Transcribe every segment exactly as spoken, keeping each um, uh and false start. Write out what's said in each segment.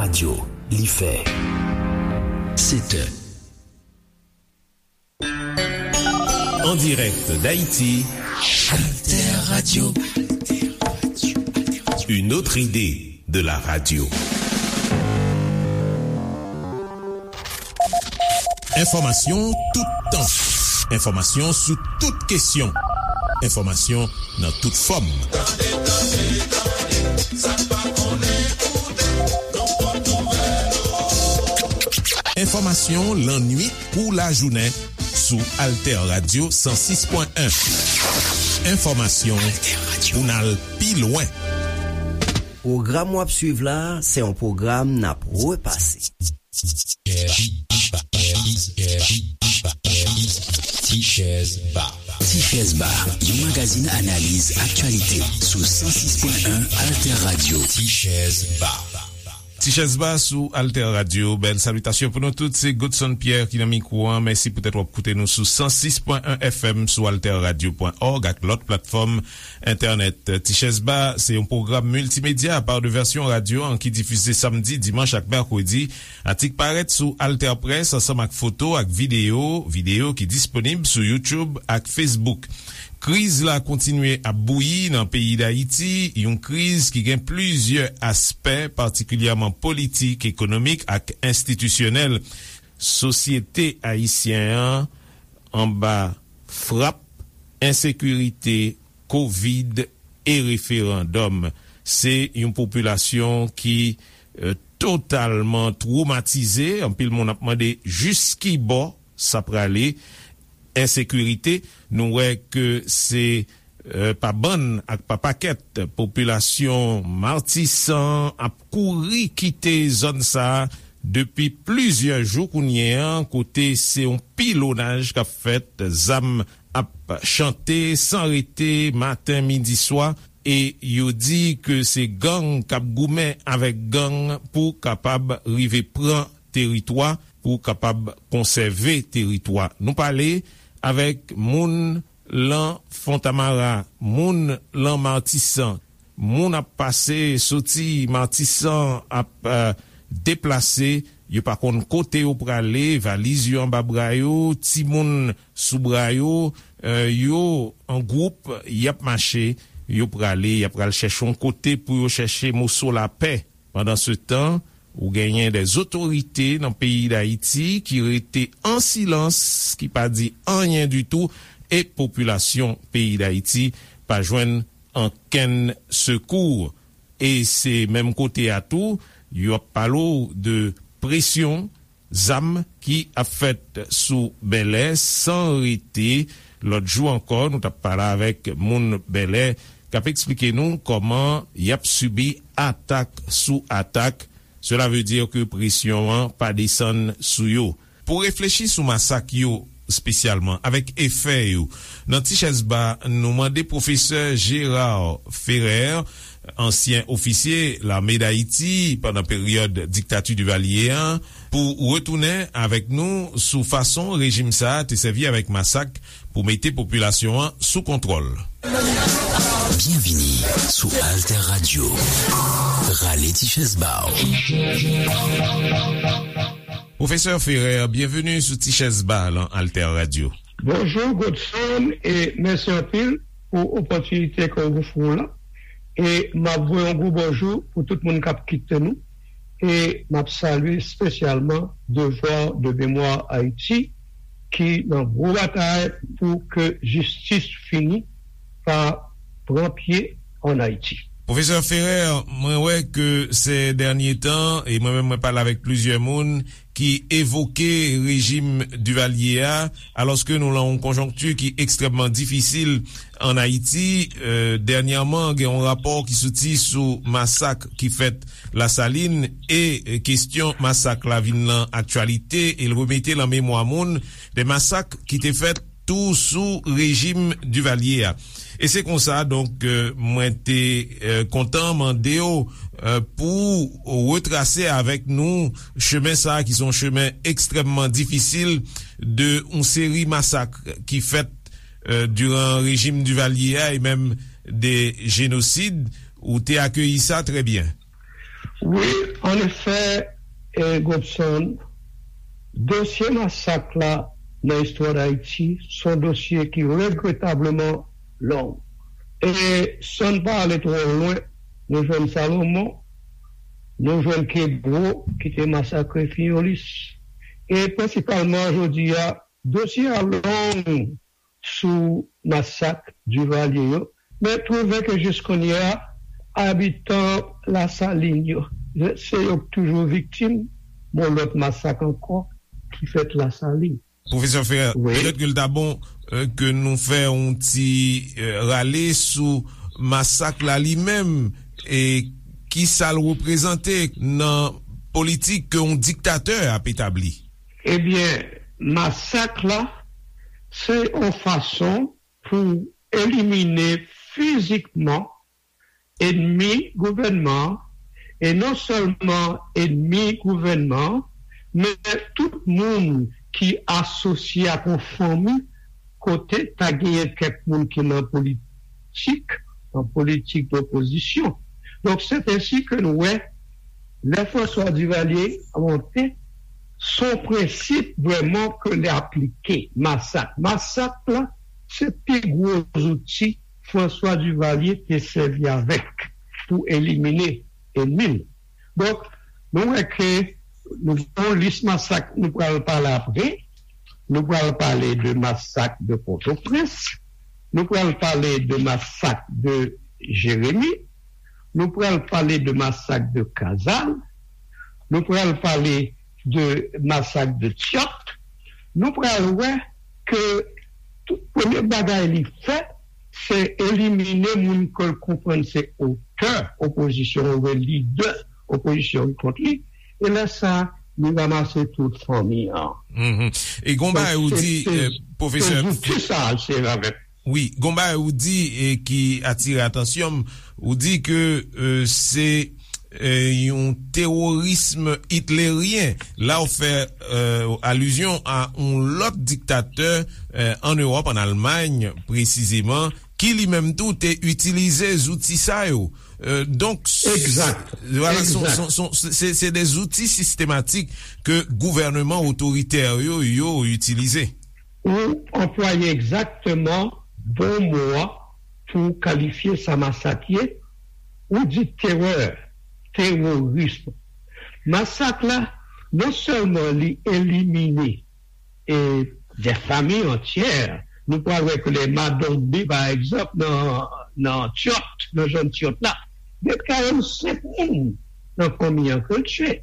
Radyo, li fè sèt è. En direct d'Haïti, Alter Radio. Une autre idée de la radio. Enfòmasyon tout tan. Enfòmasyon sou tout kesyon. Enfòmasyon nan tout fòm. Tande, tande, tande, sa n pa konnen, koute, nan pòt nouvèl. Enfòmasyon lannuit kou lajounen sou Alter Radio san sis pwen en. Enfòmasyon pou n al pi lwen. Pwogram w ap swiv la, se yon pwogram n ap repase. Tichèz Ba. Tichèz Ba, yon magazin analiz aktyalite sou san sis pwen en Alter Radio. Tichèz Ba. Tichèz Ba sou Alter Radio. Bèl salitasyon pou nou tout. Se Godson Pierre ki nan mikwo a. Mèsi poutèt w ap koute nou sou san sis pwen en F M, sou alter radio pwen org ak lòt platfòm entènèt. Tichèz Ba se yon pwogram miltimedya pa de vèsyon radyo an ki difize samdi, dimanch ak mèkredi. Atik parèt sou Alter Press ansanm ak foto ak videyo, videyo ki disponib sou YouTube ak Facebook. Kriz la kontinye ap bouyi nan peyi Dayiti, yon kriz ki gen plizyè aspè, patikilyèman politik, ekonomik ak enstitisyonèl. Sosyete ayisyen an anba frap ensekirite, kovid e referandòm. Se yon popilasyon ki, eh, totalman twomatize. Anpil moun ap mande jiskibò sa prale. Ensekirite, nou wè ke se, eh, pa bann ak pa pakèt popilasyon Matisan ap kouri kite zòn sa a depi plizyè jou kounye a, kote se yon pilonaj k ap fèt, zam ap chante san rete, maten, midi, swa, e yo di ke se gang k ap goumen avèk gang pou kapab rive pran teritwa, pou kapab konsève teritwa. Nou pale avèk moun lan Fontamara, moun lan Matisan, moun ap pase, soti Matisan, ap, eh, deplase, yo pa konn kote yo prale, valiz yo anba bra yo, timoun sou bra yo, eh, yo an gwoup, y ap mache, yo prale, y ap pral chèche yon kote pou yo chèche moso lapè. Pandansetan, ou genyen dè zotorite nan peyi Dayiti ki rete an silans, ki pa di anyen ditou, e popilasyon peyi Dayiti pa jwenn ankenn sekou. E se menm kote a tou, yo ap pale w de presyon, zam ki ap fèt sou Bèlè san rete. Lòt jou ankò, nou t ap pale avèk moun Bèlè k ap eksplike nou kòman y ap sibi atak sou atak. Sela vle di ke presyon an pa desann sou yo. Pou reflechi sou masak yo espesyalman, avèk efè yo, nan Tichèz Ba, nou mande pwofesè Gérard Ferrer, ansyen ofisye Lame Dayiti pandan peryòd diktati Divalye a, pou retounen avèk nou sou fason rejim sa a te sèvi avèk masak pou mete popilasyon an sou kontwòl. Byenvini sou Alter Radio. Rale ti chèz ba w. Pwofesè Ferrer, byenveni sou Ti Chèz Ba lan Alter Radio. Bonjou, Godson, e mèsi anpil pou opòtinite ke w ofri w lan. E m ap voye yon gwo bonjou pou tout moun k ap kite nou. E m ap salye espesyalman Devoir de Mémoire Haïti, ki nan gwo batay pou ke jistis fini pa pran pye ann Ayiti. Pwofesè Ferrer, mwen wè ke sè dènye tan, e mwen menm mwen pale avèk plizyè moun ki evoke rejim Divalye a, alòske nou lan yon konjonkti ki ekstrèmman difisil ann Ayiti. E, dènyèman, gen yon rapò ki soti sou masak ki fèt Lasalin e, e, kestyon masak la vin lan aktyalite e l remete lan memwa moun de masak ki te fèt tou sou rejim Divalye a. E se konsa, donk, e, mwen te, e, kontan mande w, e, pou w retrase avèk nou chemen sa a, ki se yon chemen ekstrèmman difisil de yon seri masak ki fèt, e, diran rejim Divalye a e menm de jenosid. Ou te akeyi sa trè byen. Wi, annefè, e, Gobson, dosye masak la nan istwa Dayiti se yon dosye ki regretableman long. E san n pa ale twò lwen, nou jwenn Salomon, nou jwenn Kebwo ki te masakre Fiyolis. E prensipalman jodi a, dosye a long sou masak Divalye yo, men twouve ke jis kounye a, abitan Lasalin yo, se yo k toujou viktim yon lòt masak ankò ki fèt Lasalin. Pwofesè Ferre, wi, petèt ke l ta bon, euh, ke nou fè yon ti, euh, rale sou masak la li menm, e ki sa l reprezante nan politik ke yon diktatè ap etabli. Ebyen, masak la, se yon fason pou elimine fizikman ennmi gouvènman an, e non sèlman ennmi gouvènman an, men tout moun ki asosye ak yon fanmi kote ta genyen kèk moun ki nan politik, nan politik dopozisyon. Donk, se ensi ke nou wè, lè François Duvalier monte, se yon prensip vrèman ke li aplike, masak. Masak la, se pi gwo zouti François Duvalier te sèvi avèk pou elimine ennmi l. Donk, nou wè ke nou gen yon lis masak nou pral pale apre. Nou pral pale de masak de Pòtoprens. Nou pral pale de masak de Jeremi. Nou pral pale de masak de Kazal. Nou pral pale de masak de Tyòt. Nou pral wè ke tout premye bagay li fè, se elimine moun ke l konprann se otè opozisyon oubyen lidè opozisyon ki kont li. E lè sa, li ranmase tout fanmi an. Mhm. E gon bagay ou di, eh, pwofesè, se zouti sa a l sèvi avèk. Wi, gon bagay ou di, eh, ki atire atansyon m, ou di ke, eh, se, eh, yon teworism itleryen. La, ou fè, eh, alizyon a yon lòt diktatè, eh, ann Ewòp, ann Almay presizeman, ki li menm tou te itilize zouti sa yo. Eh, donk, s-, Egzak. Vwala, son, Egzak. son, son, se, se de zouti sistematik ke gouvèneman otoritè yo, yo itilize. Ou anplwaye egzakteman bon mo a pou kalifye sa masak ye. Ou di terè, teworism. Masak la, non sèlman li elimine, e, de fanmi antyè, nou pral wè ke lè Madombe, pa egzanp, nan, nan Tyòt, nan zòn Tyòt la, gen karannsenk moun nan fanmi an ke l tiye.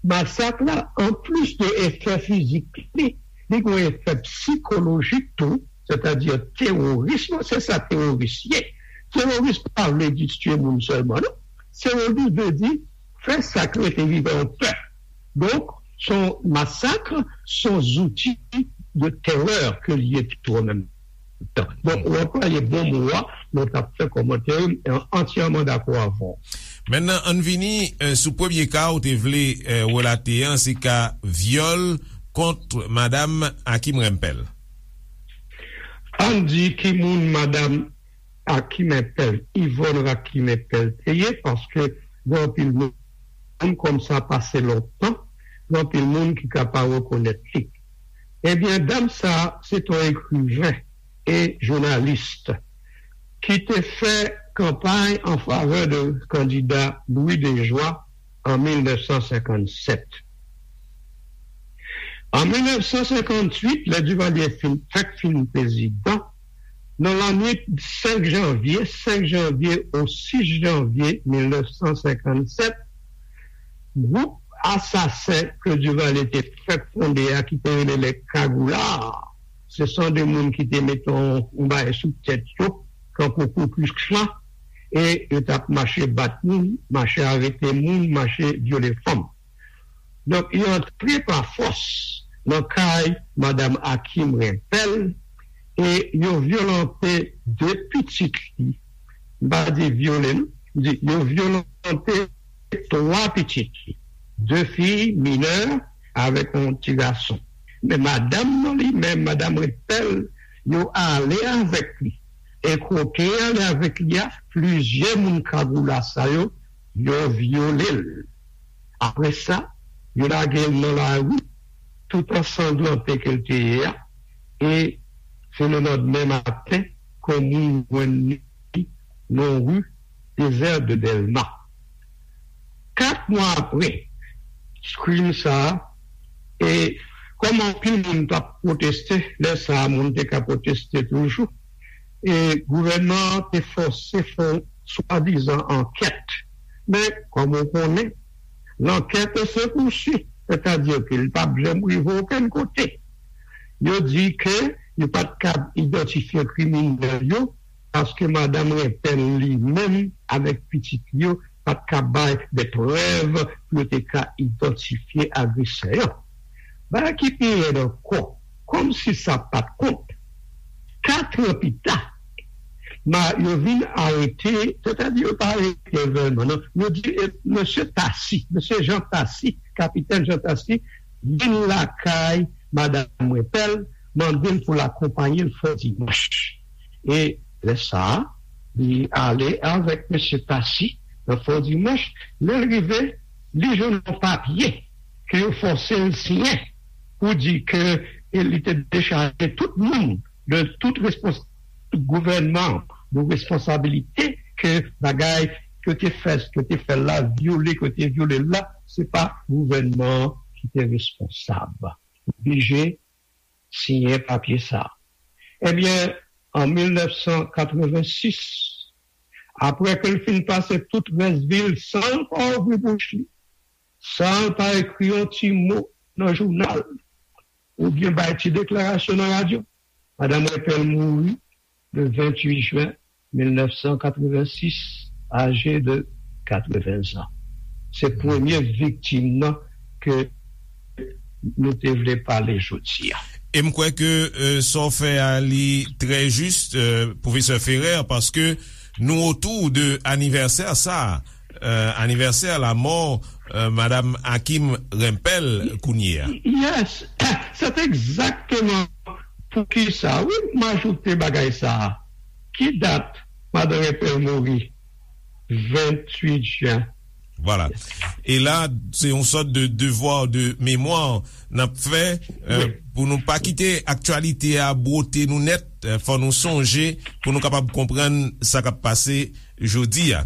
Masak la, anplis de efè fizik li, li gen yon efè sikolojik tou, sètadi teworism, se sa teworis ye. Teworis pa vle di tiye moun sèlman, non. Teworis vle di fè sa k rete vivan an pè. Donk, se yon masak, se yon zouti de terè ke l ye tou an menm tan. Donk, ou anplwaye bon mo a, lè w t ap fè kòmantè yo, m antyèman dakò avè w. Mentnan, ann vini, eh, sou premye ka ou te vle, eh, relate an, se ka vyòl kont madam Hakim Rempel. Ann di ki moun madam Hakim Rempel, Yvonne Hakim Rempel te ye, paske gen anpil moun, kòm sa pase lontan, gen anpil moun ki ka pa rekonèt li. Ebyen, dam sa a, se t on ekriven e jounalis ki te fè kanpay an favè de kandida Louis Dejoie an mil nèf san senkann sèt. An mil nèf san senkann uit, lè Duvalier fin, fèk fin prezidan, nan lannwit senk janvye, senk janvye ou sis janvye mil nèf san senkann sèt, gwoup asasen ke Duvalier te fèk fonde a, ki te rele les Cagoullards, se son de moun ki te mete yon, yon bagay sou tèt yo, tankou Ku Klux Klan, e yo t ap mache bat moun, mache arete moun, mache vyole fanm. Donk, yo antre pa fòs nan kay madam Hakim Rempel e yo vyolante de pitit li. M pa di vyole, non. M di yo vyolante twa pitit li. De fi minè avèk yon ti gason. Men madanm nan li menm, madam Rempel, yo ale avèk li. E kote yo ale avèk li a, plizyè moun Cagoula sa yo, yo vyole l. Apre sa, yo lage l nan lari, tout an sanglante ke l te ye a, e se lelandmen maten ke yon moun jwenn li nan ri Désert de Dèlma. Kat mwa apre krim sa a, e kòm anpil moun t ap pwoteste, lè sa a, moun te ka pwoteste toujou, e gouvènman an te fòse fè yon swadizan ankèt. Men, kòm ou konnen, lankèt se pousuit, sètadi ke li p ap janm rive okenn kote. Yo di ke yo pa t kab idantifye kriminèl yo, paske madanm Rempel li menm avèk pitit li yo pa t ka bay de prèv pou yo te ka idantifye agresè yo. Bagay ki pi rèd ankò, kòmsi sa pa t kont, kat an pita, ma, yo vin arete, sètadi yo pa arete vrèman, non. Yo di, e, mesye Tasi, mesye Jan Tasi, kapitèn Jan Tasi, vin lakay madanm Rempel, mande l pou l akonpaye l Fò Dimanch. E lè sa a, li ale avèk mesye Tasi nan Fò Dimanch. Lè l rive, li jwenn yon papye ke yo fòse l siyen pou di ke, e, li te dechaje tout moun de tout respons-, tout gouvènman de responsabilite ke bagay ke te fè, ke te fè la, vyole, ke te vyole la, se pa gouvènman ki te responsab. Oblije siyen papye sa. Ebyen, an mil nèf san katrevensis, apre ke l fin pase tout rès vi l san l pa ouvri bouch li, san l pa ekri yon ti mo nan jounal, oubyen bay ti deklarasyon nan radyo, madanm Rempel mouri le venntuit jen mil nèf san katrevensis, aje de katreven zan. Se premye viktim nan ke nou te vle pale jodi a. E m kwè ke, euh, sa w fè a li trè jis, euh, pwofesè Ferrer, paske nou otou de anivèsè sa a, euh, anivèsè lamò, euh, madanm Hakim Rempel kounye a. Yes, c'est exactement pou ki sa, wi, m ajoute bagay sa a. Ki dat madanm Rempel mouri? Venntuit jen. Vwala. E la, se yon sòt de devwa de memwa n ap fè, euh, wi, pou nou pa kite aktyalite a bwote nou nèt, euh, fò nou sonje pou nou kapab konprann sa k ap pase jodi a.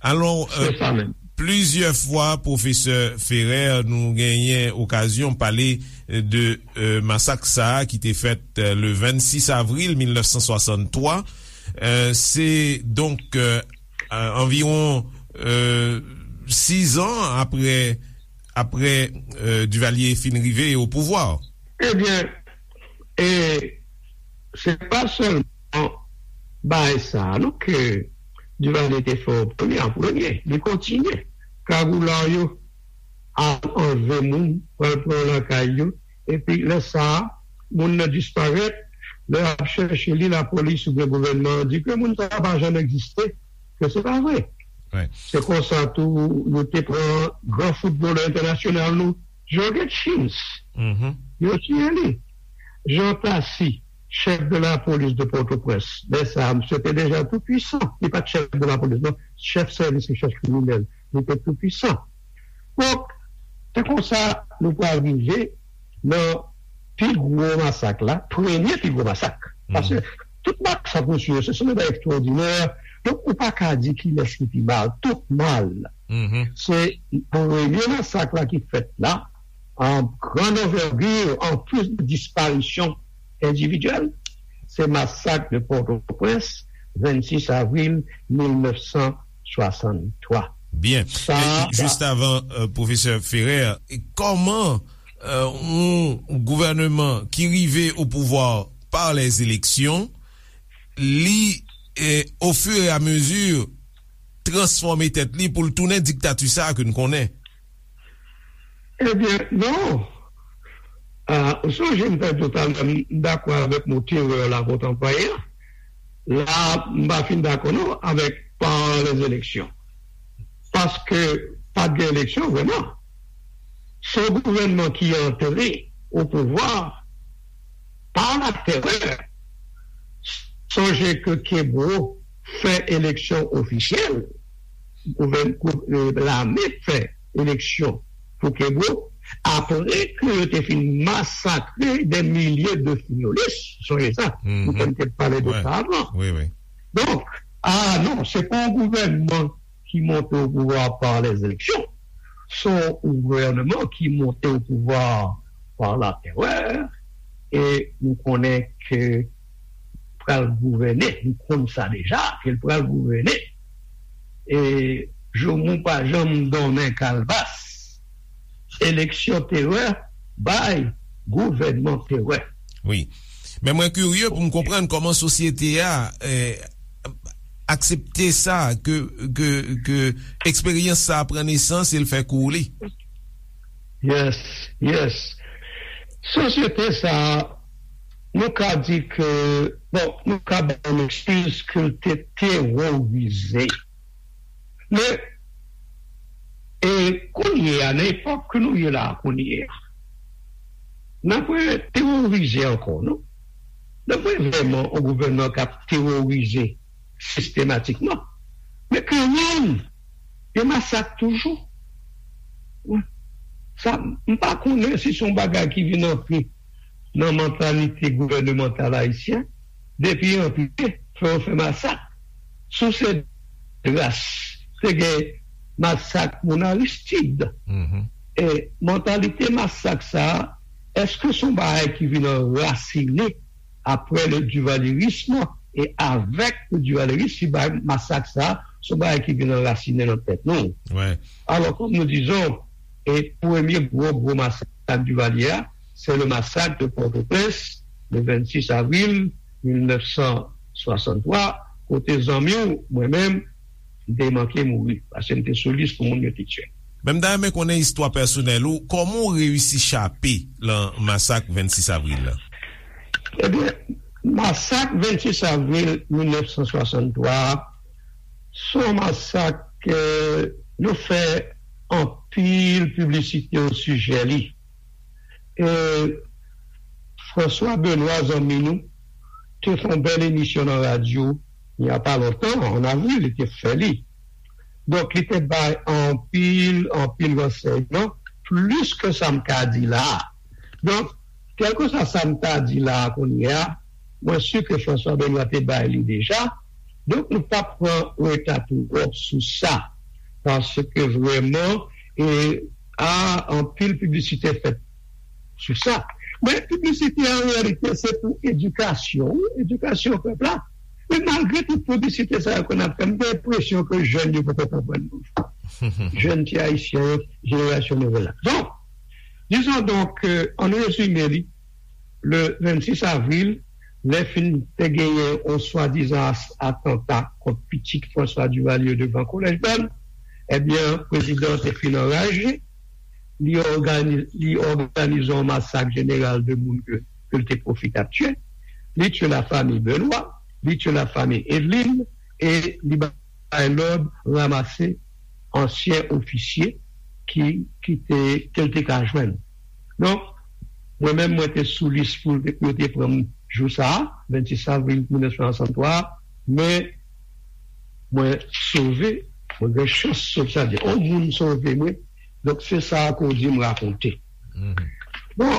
Alò, euh, se sa menm. Plizyè fwa, pwofesè Ferrer, nou genyen okazyon pale de, euh, masak sa a ki te fèt, euh, le vennsis avril mil nèf san swasanntwa. Euh, se donk, euh, euh, anviwon, euh, sis an apre, apre, euh, Duvalier fin rive o pouvwa. Ebyen, e se pa sèlman bagay sa a, non, ke Duvalier te fè an premye, an premye. Li kontinye. Kagoula yo al anlve moun, pral pran lakay yo, epi lè sa a, moun nan disparèt, lè y ap chèche li, lapolis oubyen gouvènman an di ke moun sa a pa janm egziste, ke se pa vre. Wi. Se konsa tou, yo te pran gran foutbolè entènasyonal nou, Jorge Chins. Mhm. Yo tiye li. Jean Tassy, chèf de la polis de Pòtoprens. Lè sa a, misye te deja tou pwisan. Li pa t chèf de la polis, non. Chèf sèvis rechèch kriminèl. Li te tou pwisan. Donk, se konsa nou pral rive nan pi gwo masak la, premye pi gwo masak. Paske tout masak, mesye, se, se yon bagay ekstwòdinè. Donk, ou pa ka di kilès ki pi mal. Tout mal. Mhm. Se premye masak la ki fèt la, an gran anvègi, an plis de disparisyon endividyèl, se masak de Pòtoprens, vennsis avril mil nèf san swasanntwa. Byen. Sa, e, jis avan, euh, pwofesè Ferrer, e kòman, euh, yon gouvènman ki rive o pouvwa pa lèzeleksyon, li, e, o fur e a mezi, transfòme tèt li pou l tounen diktati sa a ke n konnen? Ebyen, non. Ah, ou sonje m te di w talè, m dakò avèk mo terè la ke w t anplwaye a. La, m pa fin dakò non avèk pa lèzeleksyon. Paske pa t gen eleksyon vrèman. Se yon gouvènman ki antre o pouvwa pa la terè. Sonje ke Kebreau fè eleksyon ofisyèl, gouvèn-, gou-, e, lame fè eleksyon Coquebreau, apre ke yo te fin masakre dè milye de Fiolis, sonje sa, nou te pale de sa avan. Donk, a non, se pa yon gouvènman ki monte o pouvwa pa lèzeleksyon. Se yon gouvènman ki monte o pouvwa pa latèrè, e nou konnen ke pral gouvène, nou konn sa deja, ke l pral gouvène. E Joumou pa janm donnen kalbas. Eleksyon terè bay gouvènman terè. Wi. Men mwen kirye pou m konprann kòman sosyete a eh, aksepte sa, ke, ke, ke eksperyans sa pran nesans e l fè kou li. Yes, yes. Sosyete sa, nou ka di ke, bon, nou ka bay yon ekskiz ke l te teworize. Men, e kounye a, nan epòk ke nou ye la a kounye a, n ap teworize ankò, non? N ap vrèman yon gouvènman k ap teworize sistematikman. Men kanmenm, gen masak toujou. Sa, m pa konnen si se yon bagay ki vin antre nan mantalite gouvènemantal ayisyen, depi antre, fè yo fè masak. Sou se dras, te gen masak moun Aristid. E mantalite masak sa a, èske se yon bagay ki vin anrasinen apre le duvalyerism e avèk le duvalyerism, si bagay masak sa a, se yon bagay ki vin anrasinen nan tèt nou. Alò, kòm nou dizon, e premye gwo, gwo masak Divalye a, se le masak de Pòtoprens, le vennsis avril mil nèf san swasanntwa, kote zanmi w, mwen menm, m te manke mouri, paske m te sou lis pou moun yo te tiye. Men m ta renmen konnen istwa pèsonèl ou, kòman w reyisi chape lan masak vennsis avril la? Ebyen, masak vennsis avril mil nèf san swasanntwa a, se yon masak ke nou fè anpil piblisite osijè li. E François Benoît, zanmi nou, te fè yon bèl emisyon nan radyo, il y a pas longtemps, an avril, li te fè li. Donk, li te bay anpil, anpil ransèyman, plis ke sa m ka di la a. Donk, kèlkeswa sa m ta di la a kounye a, mwen si ke François Benoît te bay li deja. Donk, nou p ap pran reta twòp sou sa. Paske vrèman, e, a, anpil piblisite fèt sou sa. Men piblisite an reyalite se pou edikasyon, wi, edikasyon pèp la. Men malgre tout piblisite sa yo ke n ap fè, m gen enpresyon ke jèn yo poko konprann nou. Jèn ti ayisyen yo, jenerasyon nouvèl la. Donk, dizon donk, ke, an rezime li, le vennsis avril, lè fin te genyen yon swadizan atanta kont pitit François Duvalier devan Kolèj Bèl, ebyen, prezidan an te fin anraje, li òganize yon masak jeneral de moun ke l te pwofit ap tiye. Li tiye lafanmi Benoît, li tiye lafanmi Edeline, e li bay lòd ranmase ansyen ofisye ki ki te ke l te ka jwenn. Donk, mwen menm mwen te sou lis pou yo te pran m jou sa a, vennsis avril mil nèf san swasanntwa, men mwen sove, mwen gen chans sove, sa di yon moun sove mwen. Donk se sa ke w di m rakonte. Bon,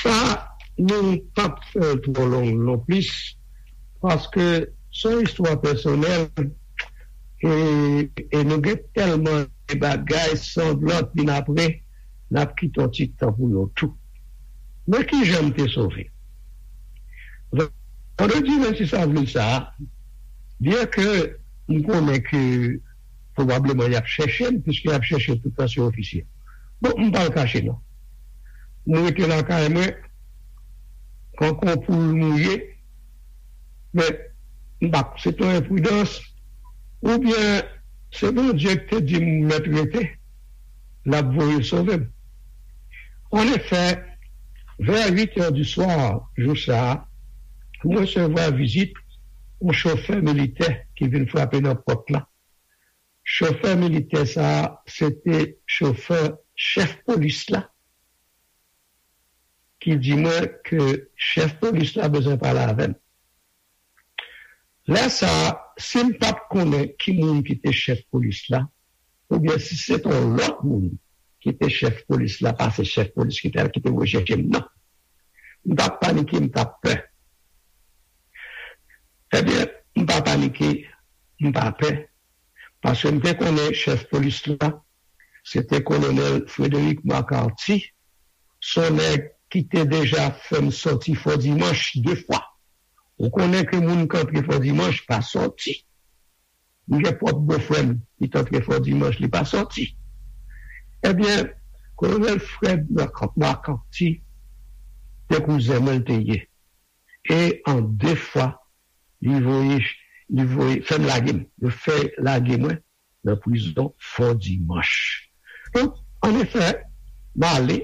sa nou p ap fè l twò long non plis, paske se yon istwa pèsonèl, e, e nou gen tèlman de bagay sanglan vin apre, n ap kite yon ti tan pou yo tou. Men kijan m te sove? Vandredi vennsis avril sa a, byen ke m konnen ke pwobableman y ap chèche m, piske y ap chèche tout ansyen ofisye. Bon, m pa l kache non. M rete lakay mwen, kankou yon poul mouye, men m pa, se te yon enpridans, oubyen se Bondye ki te di m mèt rete, l ap voye sove m. Anefè, vè uit è di swa jou sa a, m resevwa vizit yon chofè militè ki vin frape nan pòt la. Chofè militè sa a, se te chofè chèf polis la, ki di mwen ke chèf polis la bezwen pale avè m. Lè sa a, si m pa t konnen ki moun ki te chèf polis la, oubyen si se t yon lòt moun ki te chèf polis la, pa se chèf polis ki te, ki te voye chèche m, non. M t ap panike, m t ap pè. Ebyen, m pa panike, m pa pè, paske m te konnen chèf polis la, se te Kolonèl Frederick Marcarty, se yon nèg ki te deja fè m sòti Fò Dimanch de fwa. Ou konnen ke moun k antre Fò Dimanch pa sòti. M gen pwòp bofrè m ki t antre Fò Dimanch, li pa sòti. Ebyen, Kolonèl Fred Marc-, Marcanti, se kouzen mwen l te ye. E an de fwa, li voye, li voye, fè m lage m. Yo fè lage mwen nan prizon Fò Dimanch. Donk, ann efè, m ale.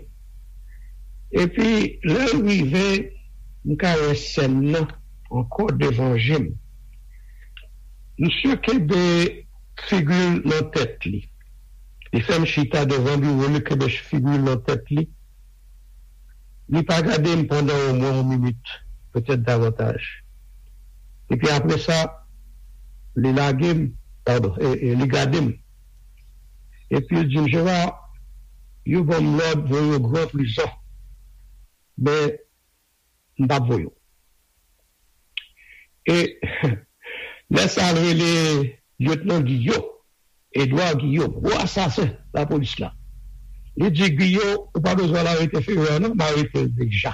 Epi, lè l rive, m ka wè sèn nan ankò devan je m. Misye kenbe figi l nan tèt li. Li fè m chita devan biwo l, li kenbe figi l nan tèt li. Li pa gade m pandan omwen yon minit, petèt davantaj. Epi apre sa, li lage m, padon, e, e, li gade m. Epi l di m, "Gerard, yo ban m lòd voye w gran prizon." Men, m p ap voye w. E lè sa a, l rele Lyetnan Giyo, Edwa Giyo, gwo asasen lapolis la. Li di, "Giyo, ou pa bezwen al arete Ferrer non, m arete l deja."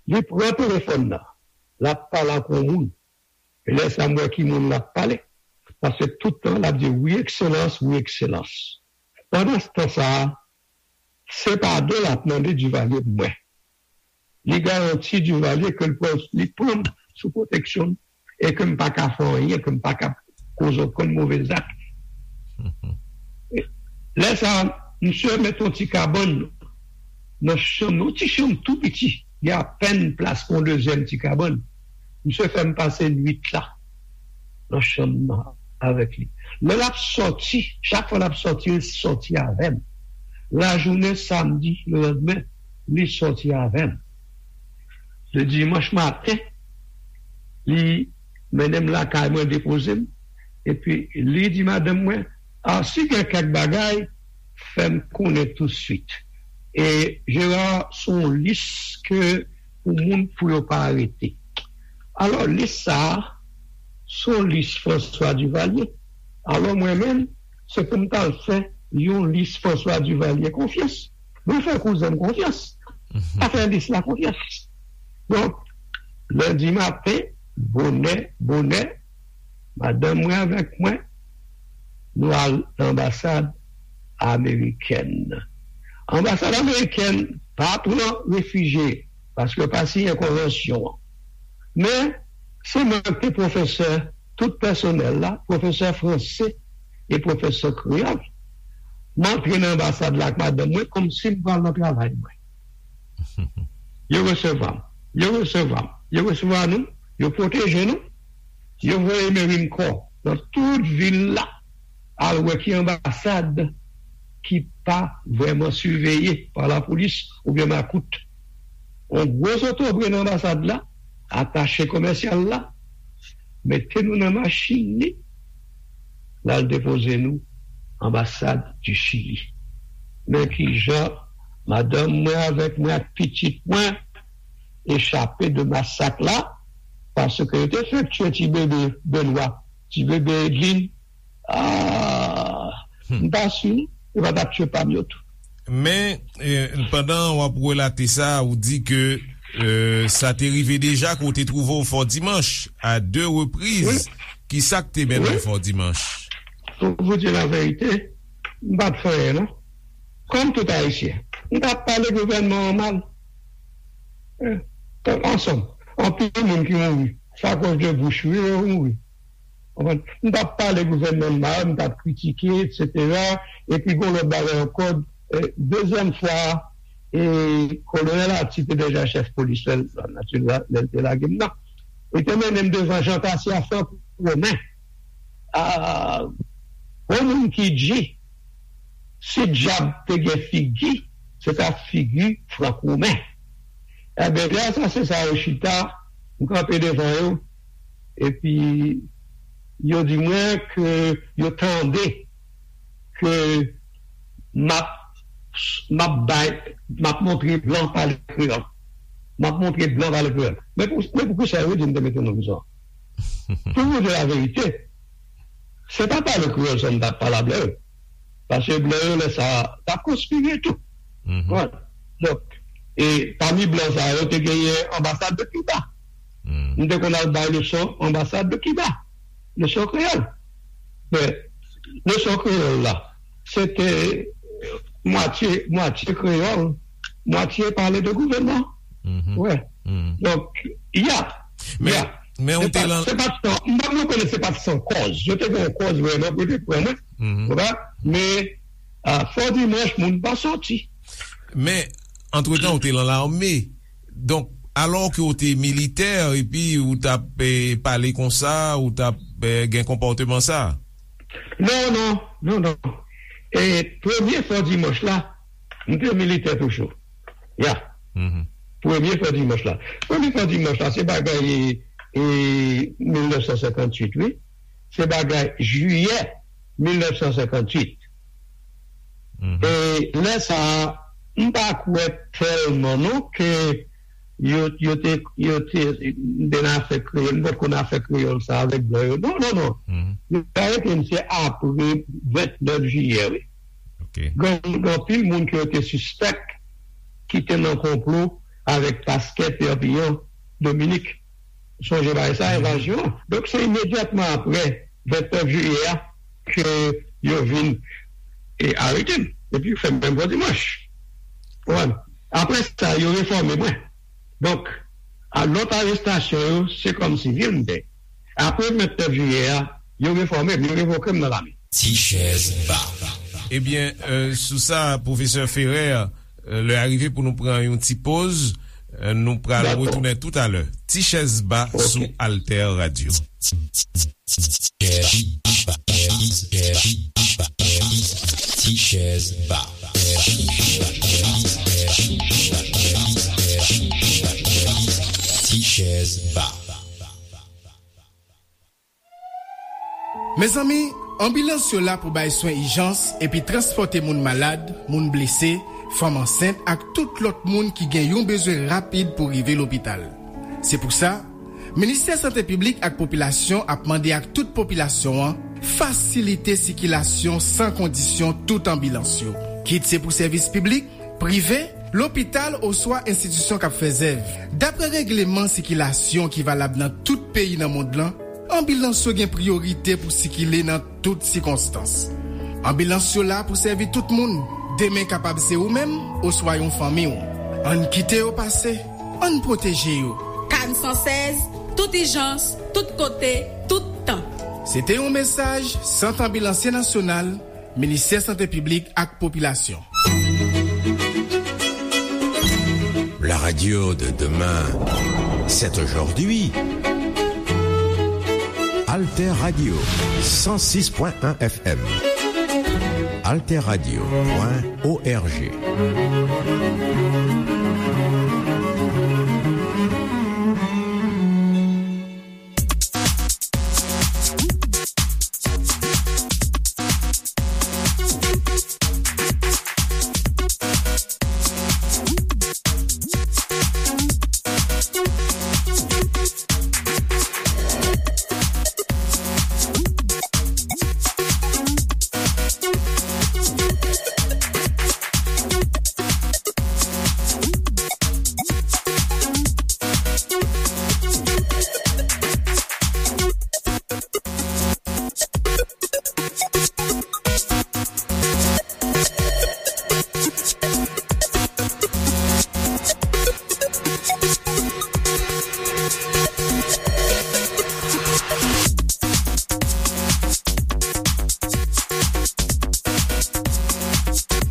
Li pran telefòn nan, l ap pale ak yon moun. E lè sa a, m wè ki moun l ap pale. Paske tout tan, l ap di, "Wi, Ekselans, wi, Ekselans." Pandan tan sa a, se padon l ap mande Duvalier pou mwen. Li garanti Duvalier ke l pran, li pran m sou pwoteksyon l e ke m pa ka fè anyen, ke m pa ka koze okenn move zak. Lè sa a, misye mete yon ti kabann nan chanm, yon ti chanm tou piti, gen apèn plas pou yon dezyèm ti kabann. Misye fè m pase nwit la nan chanm nan avèk li. Lè l ap sòti, chak fwa l ap sòti, li sòti avè m. Lajounen samdi, lelandmen, li sòti avè m. Le dimanch maten, li mennen m lakay mwen, depoze m. Epi li di madanm mwen, "A, si gen kèk bagay, fè m konnen tousuit." E Gerard, se yon lis ke pou moun pou yo pa arete. Alò, lis sa a, se yon lis François Duvalier. Alò, mwen menm, se pou m t al fè yon lis François Duvalier konfyans. Mwen fè kouzen m konfyans. Pa fè lis la konfyans. Donk, lendi maten, bonè, bonè, madanm mwen avèk mwen, nou al nan anbasad amerikèn. Anbasad amerikèn pa pran refijye, paske yo pa siyen konvansyon an. Men, se mwen ki te pwofesè tout pèsonèl la, pwofesè franse e pwofesè kreyòl. M antre nan anbasad la ak madanm mwen kòmsi m pral nan travay mwen. Yo resevwa m. Yo resevwa m. Yo resevwa nou. Yo pwoteje nou. Yo voye Mary Mcor nan tout vil la al wè ki anbasad ki pa vrèman siveye pa lapolis oubyen makout. Yon gwo zotobre nan anbasad la, atache komèsyal la, mete nou nan machin li, l al depoze nou anbasad di Chili. Men kijan madanm mwen avèk mwen ak pitit mwen echape de masak la, paske yo te fenk tiye ti bebe Benwa, ti bebe Edlin. Ah, m pa si yo pa t ap tiye pa m yo tou. Men, eh, pandan w ap relate sa, ou di ke, eh, sa te rive deja ke w te twouve w Fò Dimanch a de repriz. Ki sa k te mennen w Fò Dimanch? Pou vous dire la vérité, m pa t fè anyen, non. Kòm tout Ayisyen, m t ap pale gouvènman an mal. Eh, ansanm, anpil moun ki mouri. Sa akoz de bouch, wi, yo mouri. Konprann? M t ap pale gouvènman an mal, m t ap kritike, etsetera. Epi gon lòt bagay ankò, eh, dezyèm fwa, eh, Kolonèl Arthie te deja chèf polis lè l, lè l te lage m nan. Li te mennen m devan Jean Cassier Franck Romain. Ah, yon moun ki di, si dyab te gen figi, se ta figi Franck Romain. Ebyen, lè asasen sa yo chita, m kanpe devan yo, epi yo di mwen ke yo tande ke m ap, m ap bay, m ap montre blan pale kreyòl. M ap montre blan pale kreyòl. Men pou, men pou kisa yo di m te mete nan prizon? Pou nou di laverite, se pa pale kreyòl sèlman m t ap pale a blan yo. Paske blan yo, lè sa a, t ap konspire tou. Konprann? Donk, e pami blan sa yo, te genyen anbasad de Kiba. M te konn al bay leson anbasad de Kiba. Leson kreyòl. Men, leson kreyòl la, se te mwatye, mwatye kreyòl, mwatye pale de gouvènman. Wè. Donk, y a, Men, y a. men Se ou te pa, lan se pa t san, m pa rekonèt se pa t san kòz. Yo te gen yon kòz vrèman pou yo te pran mwen. Ou konprann? Men, a, Fò Dimanch, moun pa soti. Men, antretan, ou te lan lame. Donk, alò ke ou te militè, epi ou t ap, eh, pale konsa, ou t ap, eh, gen konpòteman sa? Non, non, non, non. E premye Fò Dimanch la, m te militè toujou. Ya. Premye Fò Dimanch la. Premye Fò Dimanch la, se bagay, e, mil nèf san senkantuit, wi. Se bagay jiyè mil nèf san senkantuit. E lè sa a, m pa kwè tèlman non ke yo, yo te, yo te, m te nan afè kreyòl, m pa t konn afè kreyòl sa avèk blan yo. Non, non, non. Yo arete m se apre vennèf jiyè, wi. Gen, gen anpil moun ke yo te sispèk ki te nan konplo avèk pastè Perpignan, Dominik. Sonje bagay sa, evazyon. Donk, se imedyatman apre vennèf jiyè a ke yo vin e arete m. Epi yo fè m menm Fò Dimanch. Konprann? Apre sa, yo refòme mwen. Donk, a lòt arestasyon yo, se kòm sivil m te. Apre vennèf jiyè a, yo refòme m, yo revoke m nan lame. Ti chèz ba. Ebyen, euh, sou sa, pwofesè Ferrer, euh, lè a rive pou nou pran yon ti poz. Euh, nou pral retounen toutalè. Ti chèz ba sou Alter Radio. Ti chèz ba. Ti chèz ba. Mezanmi, anbilans yo la pou bay swen ijans epi transpòte moun malad, moun blese, fanm ansent ak tout lòt moun ki gen yon bezwen rapid pou rive lopital. Se pou sa, Ministè Sante Piblik ak Popilasyon ap mande ak tout popilasyon an fasilite sikilasyon san kondisyon tout anbilans yo. Kit se pou sèvis piblik, prive, lopital oswa enstitisyon k ap fè zèv. Dapre regleman sikilasyon ki valab nan tout peyi nan mond lan, anbilans yo gen priyorite pou sikile nan tout sikonstans. Anbilans yo la pou sèvi tout moun. Demen kapab se ou menm oswa yon fanmi w. Ann kite yo pase. Ann pwoteje yo. K A N san sèz, tout ijans, tout kote, tout tan. Se te yon mesaj Sant Anbilansye Nasyonal, Ministè Sante Piblik ak Popilasyon. La radio de demain, c'est aujourd'hui. Alter Radio, cent six point un F M. Alterradio point org.